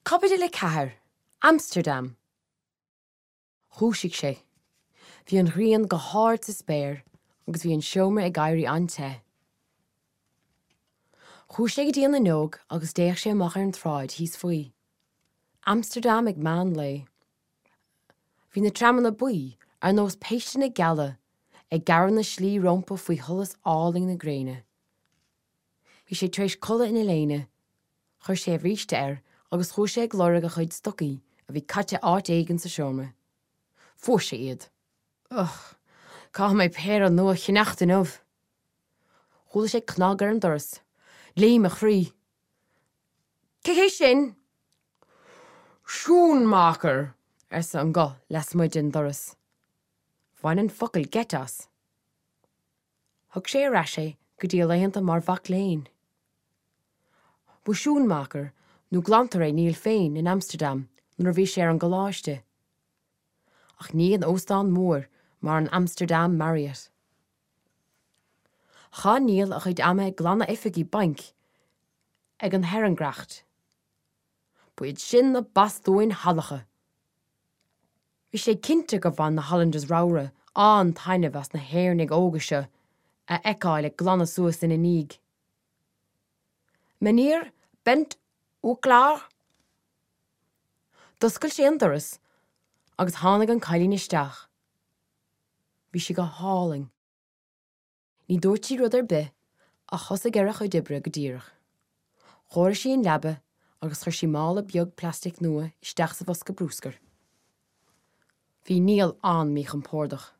Caibidil 4, Amsterdam. Dhúisigh sé. Bhí an ghrian go hard sa spéir agus bhí an seomra ag éirí an-te. Chuaigh sé go dtí an fhuinneog agus d'fhéach sé amach ar an tsráid thíos faoi. Amsterdam ag meán lae. Bhí na tramanna buí, ar nós péisteanna geala, ag gearradh na slí rompu faoi sholas álainn na gréine. Bhí sé tar éis codladh ina léine. Chuir sé a bhríste air agus chuaigh sé ag lorg a chuid stocaí a bhí caite áit éigin sa seomra. Fuair sé iad. Ugh, caithfidh mé péire nua a cheannacht inniu! Chuala sé cnag ar an doras. Léim a chroí. Cé hé sin? Schoonmaker! arsa an guth lasmuigh den doras. Bhain an focal geit as. Thug sé ar ais é go dtí a laethanta mar mhac léinn. Ba schoonmaker nó glantóir é Neil féin in Amsterdam nuair a bhí sé ar an gcoláiste. Ach ní in óstán mór mar an Amsterdam Marriott. Chaith Neil a chuid ama ag glanadh oifigí bainc ag an Herengracht. Ba iad sin na bastúin shalacha! Bhí sé cinnte gur bhain na Hollanders ramhra an-taitneamh as na hÉireannaigh óga seo a fheiceáil ag glanadh suas ina ndiaidh. Meneer, bent u klaar? D'oscail sé an doras agus tháinig an cailín isteach. Bhí sí go hálainn. Ní dúirt sí rud ar bith ach thosaigh ar a cuid oibre go díreach. Chóirigh sí an leaba agus chuir sí mála beag plastic nua isteach sa bhosca brúscair. Bhí Niall an-míchompordach.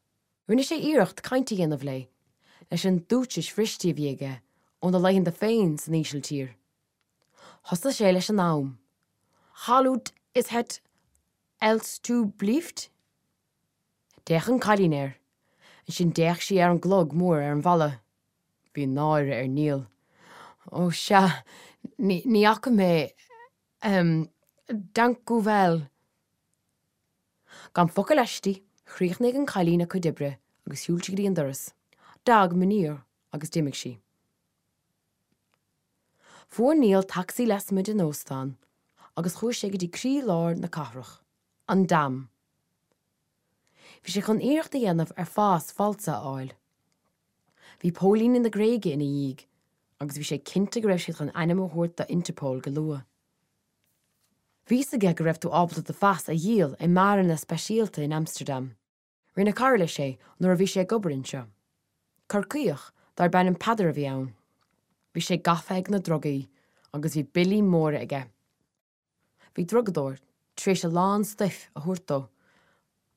Rinne sé iarracht caint a dhéanamh léi, leis an Dúitsis bhriste a bhí aige óna laethanta féin san Ísiltír. Thosaigh sé leis an am. Hoe laat is het alstublieft? D'fhéach an cailín air. Ansin d'fhéach sí ar an gclog mór ar an bhalla. Bhí náire ar Niall. Ó, sea, ní, ní fhaca mé, ehm, dank u wel. Gan focal aisti, chríochnaigh an cailín a cuid oibre agus shiúil sí go dtí an doras. Dag, meneer, agus d'imigh sí. Fuair Niall tacsaí lasmuigh den óstán agus chuaigh sé go dtí croí-lár na cathrach, an Dam. Bhí sé chun iarracht a dhéanamh ar phas falsa a fháil. Bhí póilíní na Gréige ina dhiaidh agus bhí sé cinnte go raibh siad chun ainm a thabhairt do Interpol go luath. Bhí fhios aige go raibh tú ábalta do phas a dhíol i mbeáranna speisialta in Amsterdam. Rinne cara leis é nuair a bhí sé ag obair anseo. Corcaíoch darb ainm Peadar a bhí ann. Bhí sé gafa ag na drugaí agus bhí billí móra aige. Bhí drugadóir tar éis a lán stuif a thabhairt dó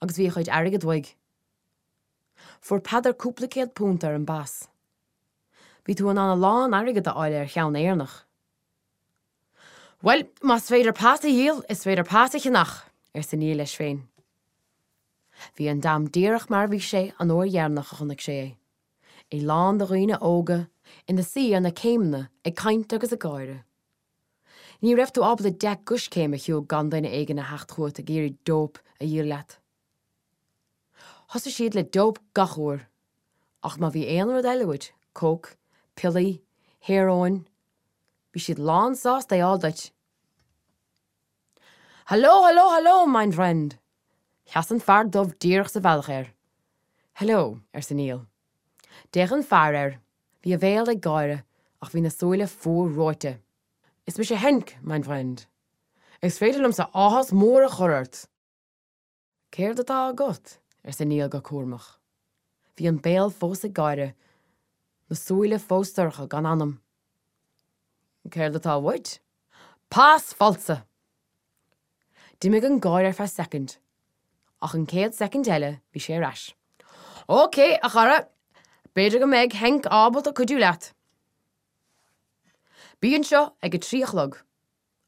agus bhí a chuid airgid uaidh. Fuair Peadar cúpla £100 ar an bpas. Bhí tú in ann a lán airgid a fháil ar cheann Éireannach. Bhuel, más féidir pas a dhíol, is féidir pas a cheannach, arsa Niall leis féin. Bhí an Dam díreach mar a bhí sé an uair dheireanach a chonaic sé é, é lán de dhaoine óga ina suí ar na céimeanna ag caint agus ag gáire. Ní raibh tú ábalta 10 gcoiscéim a shiúl gan duine éigin a theacht chugat ag iarraidh dope a dhíol leat. Thosaigh siad le dope gach uair, ach má bhí aon rud eile uait, coke, piollaí, hearóin, bhí siad lán sásta é a fháil duit. Hallo, hallo, hallo, mein Freund! Sheas an fear dubh díreach sa bhealach air. Hello, arsa Niall. D'fhéach an fear air. Bhí a bhéal ag gáire ach bhí na súile fuar reoite. Is mise Henk, mein Freund. Is féidir liomsa áthas mór a chur ort! Céard atá agat? arsa Niall go cúramach. Bhí an béal fós ag gáire, na súile fós dorcha gan anam. Céard atá uait? Pas falsa! D'imigh an gáire ar feadh soicind, ach an chéad soicind eile bhí sé ar ais. Ok, a chara, b'fhéidir go mbeidh Henk ábalta cuidiú leat. Bí anseo ag a 3 a chlog.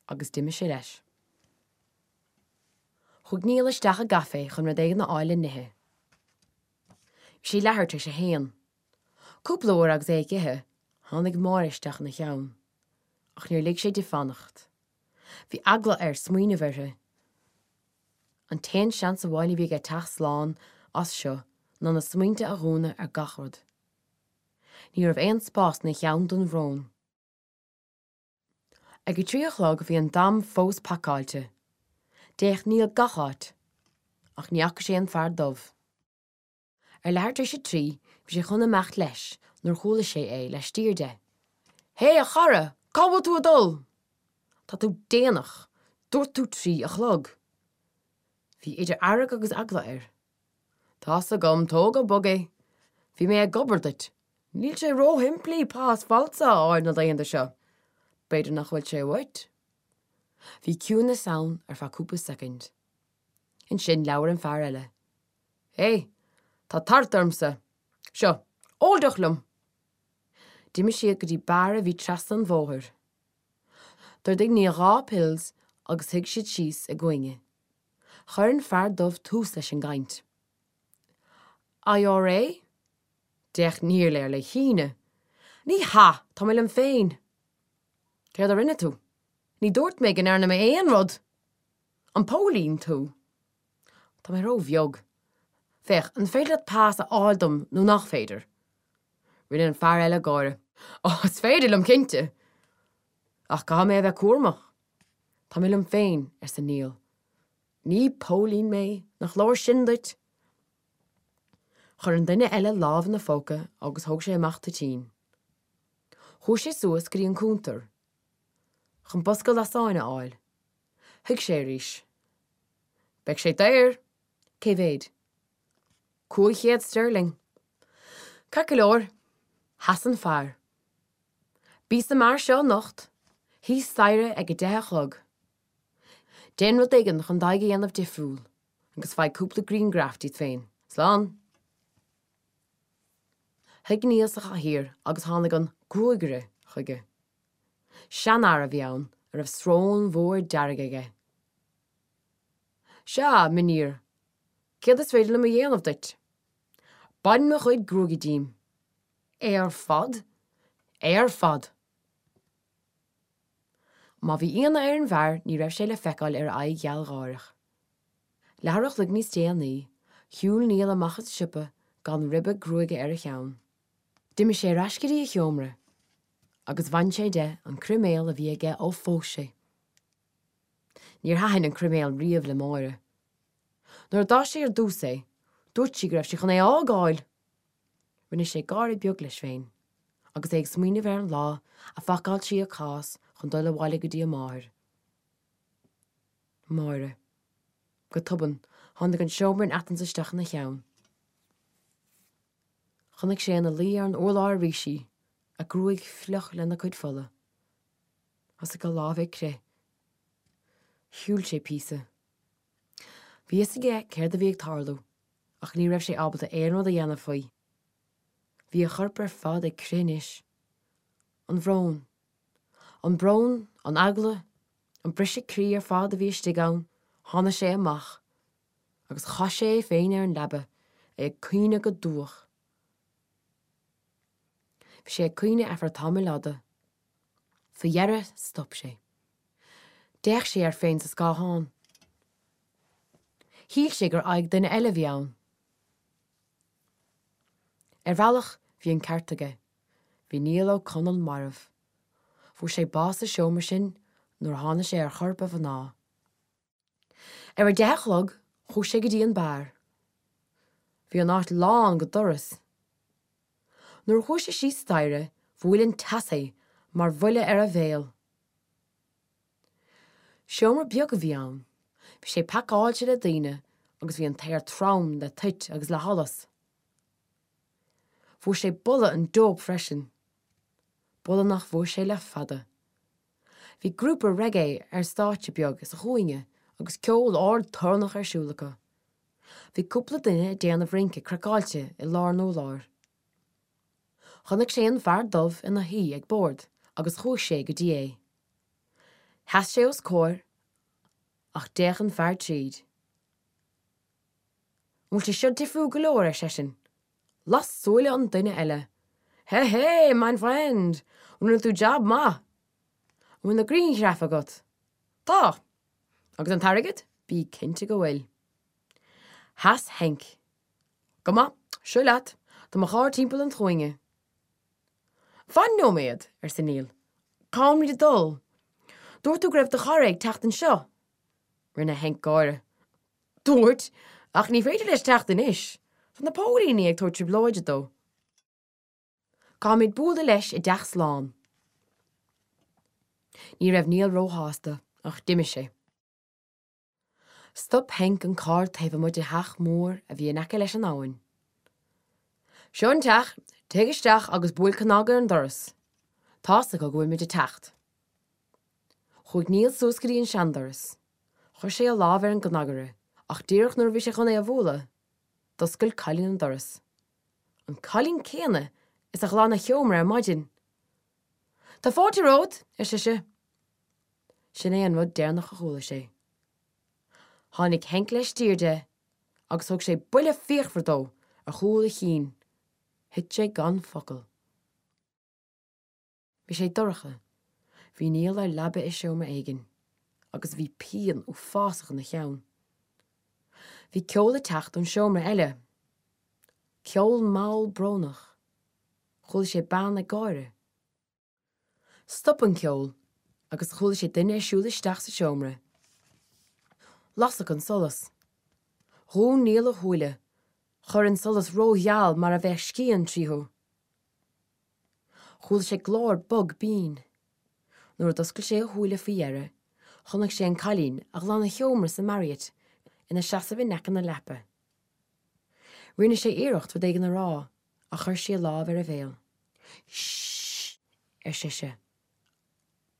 Agus d'imigh sé leis. Chuaigh Niall isteach i gcaifé chun rud éigin a fháil le n-ithe. Bhí sé leathuair tar éis a haon. Cúpla uair agus é ag ithe, tháinig Máire isteach ina cheann. Ach níor lig sé di fanacht. Bhí eagla air smaoineamh uirthi. An t-aon seans amháin a bhí aige teacht slán as seo ná na smaointe a dhúnadh ar gach rud. Ní raibh aon spás ina cheann don bhrón. Ag a 3 a chlog bhí an Dam fós pacáilte. D'fhéach Niall gach áit, ach ní fhaca sé an fear dubh. Ar leathuair tar éis a 3 bhí sé chun imeacht leis nuair chuala sé é laistiar de. Hé, a chara, cá bhfuil tú ag dul? Tá tú déanach, dúirt tú 3 a chlog. Bhí idir fhearg agus eagla air. Tá's agam, tóg go bog é. Bhí mé ag obair duit. Níl sé róshimplí pas falsa a fháil na laethanta seo. B'fhéidir nach bhfuil sé uait. Bhí ciúnas ann ar feadh cúpla soicind. Ansin labhair an fear eile. Hé, tá tart ormsa. Seo, ól deoch liom! D'imigh siad go dtí beár a bhí trasna an bhóthair. D'ordaigh Niall 2 pils agus shuigh siad síos i gcúinne. Chuir an fear dubh tús leis an gcaint. IRA? D'fhéach Niall air le hionadh. Ní hea, tá mé liom féin. Céard a rinne tú? Ní dúirt mé go ndearna mé aon rud! An póilín tú? Tá mé ró-bheag. Féach, an féidir leat pas a fháil dom nó nach féidir? Rinne an fear eile gáire. Ó, is féidir liom, cinnte! Ach caithfidh mé a bheith cúramach. Tá mé liom féin, arsa Niall. Ní póilín mé, nach leor sin duit? Chuir an duine eile lámh ina phóca agus thóg sé amach toitín. Chuaigh sé suas go dtí an cuntar chun bosca lasáin a fháil. Shuigh sé arís. Beidh sé daor! Cé mhéad? 500 sterling. Ceart go leor. Sheas an fear. Bí sa mbeár seo anocht, thíos staighre ag a deich a chlog. Déan rud éigin chun d'aghaidh a dhéanamh difriúil agus faigh cúpla grianghraf díot féin. Slán! Shuigh Niall sa chathaoir agus tháinig an gruagaire chuige. Seanfhear a bhí ann a raibh srón mhór dearg aige. Sea, mijnheer, céard is féidir liom a dhéanamh duit? Bain mo chuid gruaige díom. É ar fad? É ar fad! Má bhí ionadh ar an bhfear ní raibh sé le feiceáil ar a aghaidh ghealgháireach. Leathuair a chloig níos déanaí, shiúil Niall amach as an siopa gan ribe gruaige ar a cheann. D'imigh sé ar ais go dtí a sheomra agus bhain sé de an croiméal a bhí aige ó phós sé. Níor thaitin an croiméal riamh le Máire. Nuair a d'fhás sé ar dtús é, dúirt sí go raibh sé chun é a fhágáil! Rinne sé gáire beag leis féin agus é ag smaoineamh ar an lá a phacáil sí a cás chun dul abhaile go dtí a máthair. Máire. Go tobann, tháinig an seomra in Athens isteach ina cheann. Chonaic sé ina luí ar an urlár arís í, a gruaig fliuch lena cuid fola. Thosaigh a lámha ag crith. Shiúil sé píosa. Bhí fhios aige céard a bhí ag tarlú ach ní raibh sé ábalta aon rud a dhéanamh faoi. Bhí a chorp ar fad ag crith anois. An bhrón. An brón, an eagla, an briseadh croí ar fad a bhí istigh ann, tháinig sé amach agus chaith sé é féin ar an leaba, é ag caoineadh go dubhach. Bhí sé ag caoineadh ar feadh tamaill fhada. Faoi dheireadh, stop sé. D'fhéach sé air féin sa scáthán. Shíl sé gur aghaidh duine eile a bhí ann. Ar bhealach, bhí an ceart aige. Bhí Niall Ó Conaill marbh. Fuair sé bás sa seomra sin nuair a tháinig sé ar chorp a mhná. Ar a deich a chlog, chuaigh sé go dtí an beár. Bhí an áit lán go doras. Nuair a chuaigh sé síos staighre, bhuail an teas é mar bhuille ar a bhéal. Seomra beag a bhí ann. Bhí sé pacáilte le daoine agus bhí an t-aer trom le toit agus le hallas. Fuair sé boladh an dóip freisin. Boladh nach bhfuair sé le fada. Bhí grúpa reggae ar stáitse beag sa chúinne agus ceol ard torannach ar siúl acu. Bhí cúpla duine ag déanamh rince craiceáilte i lár an urláir. Chonaic sé an fear dubh ina shuí ag bord agus chuaigh sé go dtí é. Sheas sé os comhair ach d'fhéach an fear tríd. An bhfuil sé seo difriúil go leor, ar seisean. Las súile an duine eile. Hé hé, mein Freund! Rinne tú jab maith! An bhfuil na grianghraif agat? Tá! Agus an t-airgead? Bí cinnte go bhfuil. Sheas Henk. Go maith, seo leat, tá mo charr timpeall an chúinne. Fan nóiméad, arsa Niall. Cá bhfuilimid ag dul? Dúirt tú go raibh do chara ag teacht anseo. Rinne Henk gáire. Dúirt, ach ní féidir leis teacht anois. Tá na póilíní ag tabhairt trioblóide dó. Caithfimid bualadh leis i dteach slán. Ní raibh Niall róshásta, ach d'imigh sé. Stop Henk an carr taobh amuigh de theach mór a bhí in aice leis an abhainn. Seo an teach, téigh isteach agus buail cnag ar an doras. Tá's acu go bhfuil muid ag teacht. Chuaigh Niall suas go dtí an seandoras. Chuir sé a lámh ar an gcnagaire, ach díreach nuair a bhí sé chun é a bhualadh, d'oscail cailín an doras. An cailín céanna is a ghlan a sheomra ar maidin. Tá fáilte romhat, ar sise. Sin é an rud deireanach a chuala sé. Tháinig Henk laistiar de agus thug sé buille fíochmhar dó ar chúl a chinn. Thit sé gan focal. Bhí sé dorcha. Bhí Niall ar leaba i seomra éigin agus bhí pian uafásach ina cheann. Bhí ceol ag teacht ón seomra eile. Ceol mall brónach. Chuala sé bean ag gáire. Stop an ceol agus chuala sé duine ag siúl isteach sa seomra. Lasadh an solas. Dhún Niall a shúile, chuir an solas rógheal mar a bheadh scian tríothu. Chuala sé glór bog binn. Nuair a d'oscail sé a shúile faoi dheireadh, chonaic sé an cailín a ghlan a sheomra sa Marriott ina seasamh in aice na leapa. Rinne sé iarracht rud éigin a rá ach chuir sí a lámh ar a bhéal. Shh! ar sise.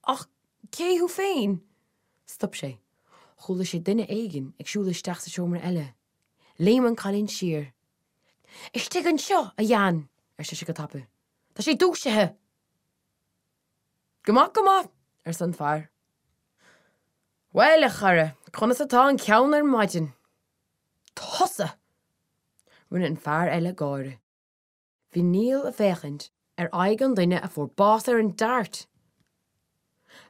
Ach cé thú féin? Stop sé. Chuala sé duine éigin ag siúl isteach sa seomra eile. Léim an cailín siar. Istigh anseo, a Jan! ar sise go tapa. Tá sé dúisithe! Go maith, go maith! arsa an fear. Bhuel, a chara, conas atá an ceann ar maidin? Tusa! Rinne an fear eile gáire. Bhí Niall ag féachaint ar aghaidh an duine a fuair bás ar an Dart.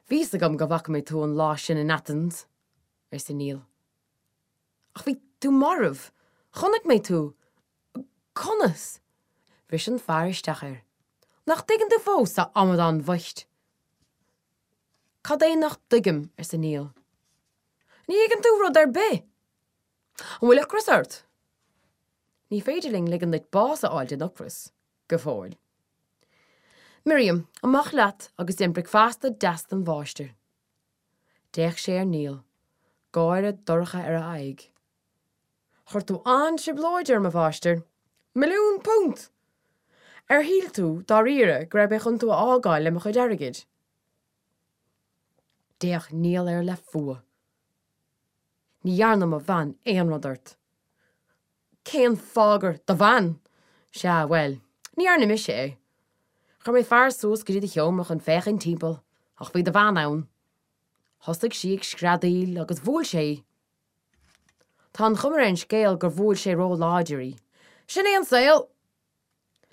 Bhí 'fhios agam go bhfaca mé tú an lá sin in Athens, arsa Niall. Ach bhí tú marbh. Chonaic mé tú. Conas? Bhris an fear isteach air. Nach dtuigeann tú fós, a amadáin bhoicht? Cad é nach dtuigim? arsa Niall. Ní thuigeann tú rud ar bith! An bhfuil ocras ort? Ní féidir linn ligean duit bás a fháil den ocras, go fóill. Miriam, amach leat agus déan bricfeasta deas don mháistir. D'fhéach sé ar Niall, gáire dorcha ar a aghaidh. Chuir tú an-trioblóid orm, a mháistir. Milliún punt! Ar shíl tú, dáiríre, go raibh mé chun tú a fhágáil le mo chuid airgid? D'fhéach Niall air le fuath. Ní dhearna mo bhean aon rud ort. Cén fáth gur do bhean? Sea, bhuel, ní dhearna mise é. Chuir mé fear suas go dtí do sheomra chun féachaint timpeall, ach bhí do bhean ann. Thosaigh sí ag screadaíl agus bhuail sé í. Tá an chuma ar an scéal gur bhuail sé ró-láidir í. Sin é an saol!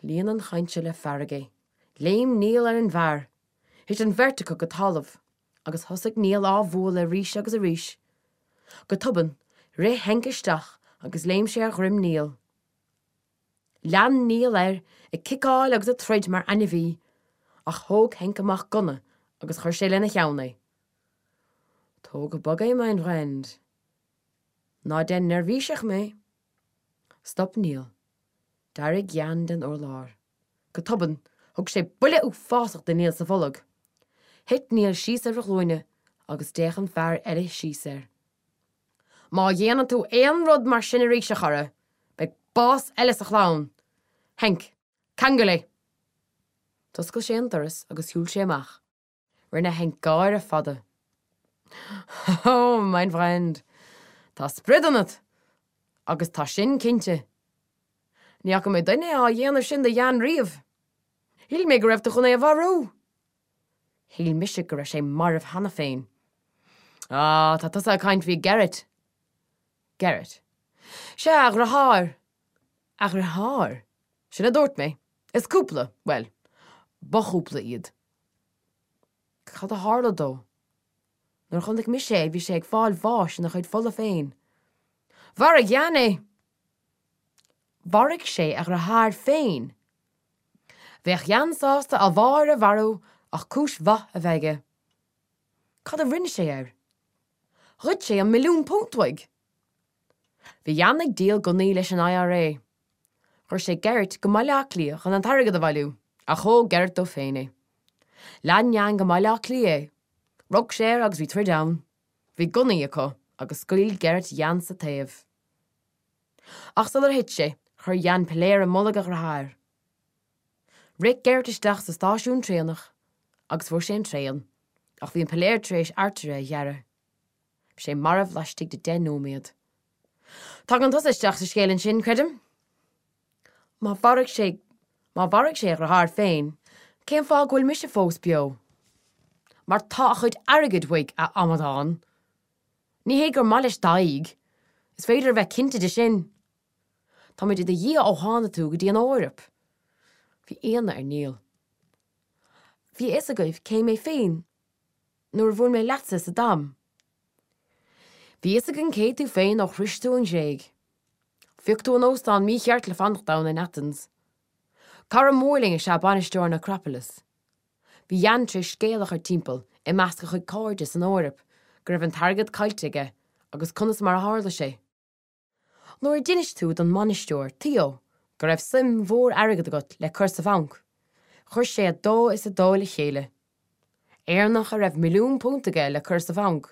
Líon an chaint seo le fearg é. Léim Niall ar an bhfear. Thit an bheirt acu go talamh. Agus thosaigh Niall á bhualadh arís agus arís. Go tobann, rith Henk isteach agus léim sé ar dhroim Niall. Lean Niall air, ag ciceáil agus ag troid mar ainmhí, ach thóg Henk amach gunna agus chuir sé lena cheann é. Tóg go bog é, mein Freund. Ná déan neirbhíseach mé. Stop Niall. D'éirigh Jan den urlár. Go tobann, thug sé buille uafásach do Niall sa bholg. Thit Niall síos ar a ghlúine agus d'fhéach an fear eile síos air. Má dhéanann tú aon rud mar sin arís, a chara, beidh bás eile sa chlann! Henk, ceangail é! D'oscail sé an doras agus shiúil sé amach. Rinne Henk gáire fada. Oh, mein Freund, tá sprid ionat! Agus tá sin cinnte. Ní fhaca mé duine á dhéanamh sin do Jan riamh. Shíl mé go raibh tú chun é a mharú! Shíl mise go raibh sé marbh cheana féin. Ah, tá tusa ag caint faoi Gerrit. Gerrit. Sea, a dhriotháir. A dhriotháir? Sin a dúirt mé. Is cúpla, bhuel, ba chúpla iad. Cad a tharla dó? Nuair a chonaic mise é bhí sé ag fáil bháis ina chuid fola féin. Mharaigh Jan é! Mharaigh sé a dhriotháir féin! Bheadh Jan sásta a mháthair a mharú ach cúis mhaith a bheith aige. Cad a rinne sé air? Ghoid sé an £1,000,000 uaidh! Bhí Jan ag díol gunnaí leis an IRA. Chuir sé Gerrit go mBaile Átha Cliath chun an t-airgead a bhailiú, ach thóg Gerrit dó féin é. Lean Jan go mBaile Átha Cliath é. Rug sé air agus bhí troid ann. Bhí gunnaí acu agus scaoil Gerrit Jan sa taobh. Ach sular thit sé, chuir Jan piléar i mbolg a dhriotháir. Rith Gerrit isteach sa stáisiún traenach agus fuair sé an traein, ach bhí an piléar tar éis artaire a ghearradh. Bhí sé marbh laistigh de deich nóiméad. Tagann tusa isteach sa scéal ansin, creidim? Má mharaigh sé, má mharaigh sé a dhriotháir féin, cén fáth go bhfuil mise fós beo? Mar tá a chuid airgid uaidh, a amadáin! Ní hé gur maith leis d'aghaidh, is féidir a bheith cinnte de sin! Táimid i do dhiaidh ó tháinig tú go dtí an Eoraip. Bhí ionadh ar Niall. Bhí a fhios agaibh cé mé féin nuair a bhuail mé leatsa sa Dam. Bhí a fhios againn cé tú féin ó shrois tú an Ghréig. Phioc tú an óstán mícheart le fanacht ann in Athens. Cara mór linn is ea bainisteoir an Acropolis. Bhí Jan tar éis scéal a chur timpeall i measc a chuid cairde san Eoraip go raibh an t-airgead caillte aige agus conas mar a tharla sé. Nuair a d'inis tú don mbainisteoir, Theo, go raibh suim mhór airgid agat le cur sa bhanc, chuir sé a dó is a dó le chéile. Éireannach a raibh £1,000,000 aige le cur sa bhanc,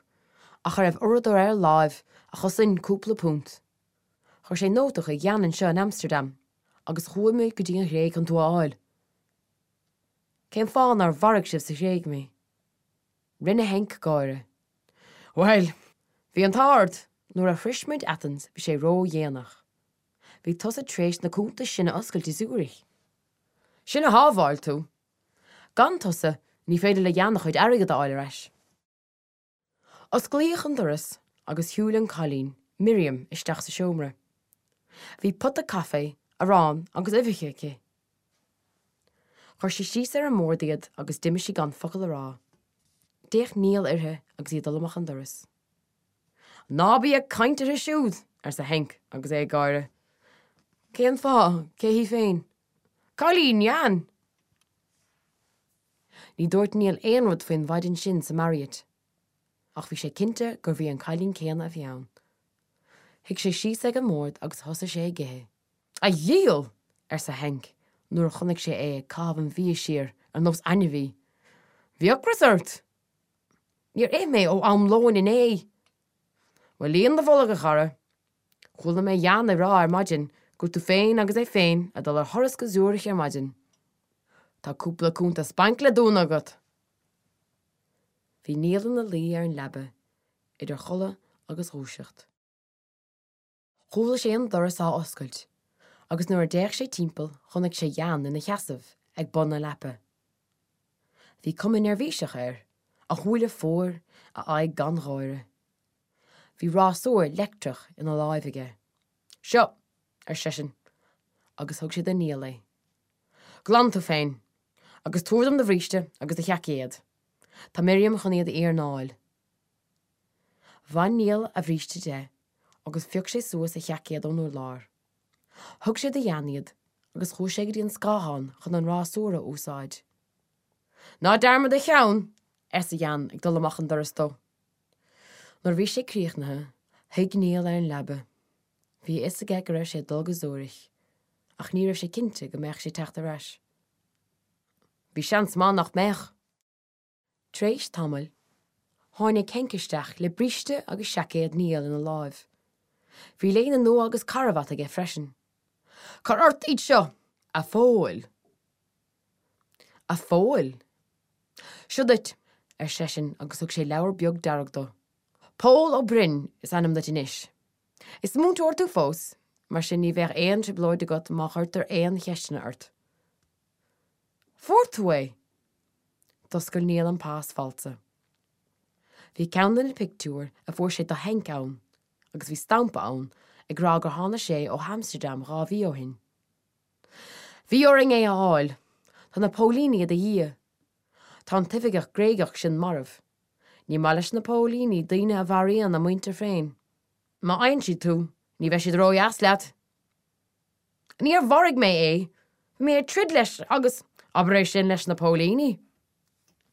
ach a raibh uaireadóir ar a láimh a chosain cúpla punt. Chuir sé nóta chuig Jan anseo in Amsterdam agus chuaigh muid go dtí an Ghréig chun tú a fháil. Cén fáth nár mharaigh sibh sa Ghréig mé? Rinne Henk gáire. Bhuel, bhí an t-ádh ort! Nuair a shrois muid Athens bhí sé ródhéanach. Bhí tusa tar éis na cuntais sin a oscailt i Zurich. Sin a shábháil tú! Gan tusa, ní féidir le Jan a chuid airgid a fháil ar ais. Osclaíodh an doras agus shiúil an cailín, Miriam, isteach sa seomra. Bhí pota caife, arán agus uibheacha aici. Chuir sí síos ar an mbord iad agus d'imigh sí gan focal a rá. D'fhéach Niall uirthi agus í ag dul amach an doras. Ná bí ag caint uirthi siúd! arsa Henk agus é ag gáire. Cén fáth? Cé hí féin? Cailín Jan! Ní dúirt Niall aon rud faoin mhaidin sin sa Marriott. Ach bhí sé cinnte gurbh í an cailín céanna a bhí ann. Shuigh sé síos ag an mbord agus thosaigh sé ag ithe. A dhiabhail! arsa Henk nuair a chonaic sé é ag caitheamh an bhia siar ar nós ainmhí. Bhí ocras ort! Níor ith mé ó am lóin inné! Bhuel, líon do bholg, a chara. Chuala mé Jan ag rá ar maidin go raibh tú féin agus é féin ag dul ar thuras go Zürich ar maidin. Tá cúpla cuntas bainc le dúnadh agat! Bhí Niall ina luí ar an leaba, idir chodladh agus dhúiseacht. Chuala sé an doras á oscailt agus nuair a d'fhéach sé timpeall chonaic sé Jan ina sheasamh ag bun na leapa. Bhí cuma neirbhíseach air, a shúile fuar, a aghaidh gan gháire. Bhí rásúr leictreach ina láimh aige. Seo! ar seisean agus thug sé do Niall é. Glan tú féin agus tabhair dom do bhríste agus do sheaicéad. Tá Miriam chun iad a iarnáil. Bhain Niall a bhríste de agus phioc sé suas a sheaicéad ón urlár. Thug sé do Jan iad agus chuaigh sé go dtí an scáthán chun an rásúr a úsáid. Ná dearmad do cheann! arsa Jan ag dul amach an doras dó. Nuair a bhí sé críochnaithe, shuigh Niall ar an leaba. Bhí a fhios aige go raibh sé ag dul go Zürich, ach ní raibh sé cinnte go mbeadh sé ag teacht ar ais. Bhí seans maith nach mbeadh! Tar éis tamaill, tháinig Henk isteach le bríste agus seaicéad Niall ina láimh. Bhí léine nua agus carbhat aige freisin. Cuir ort iad seo, a Phóil! A Phóil! Seo duit, ar seisean agus thug sé leabhar beag dearg dó. Pól Ó Broin is ainm duit anois. Is múinteoir tú fós, mar sin ní bheidh aon trioblóid agat má chuirtear aon cheisteanna ort. Fuair tú é! D'oscail Niall an pas falsa. Bhí ceann de na pictiúir a fuair sé do Henk ann agus bhí stampa ann ag rá gur tháinig sé ó Amsterdam 2 mhí ó shin. Bhí orainn é a fháil. Tá na póilíní i do dhiaidh. Tá an t-oifigeach Gréigeach sin marbh. Ní maith leis na póilíní daoine a mharaíonn a muintir féin. Má fhaigheann siad tú, ní bheidh siad ródheas leat. Níor mharaigh mé é! Bhí mé ag troid leis agus, abair é sin leis na póilíní!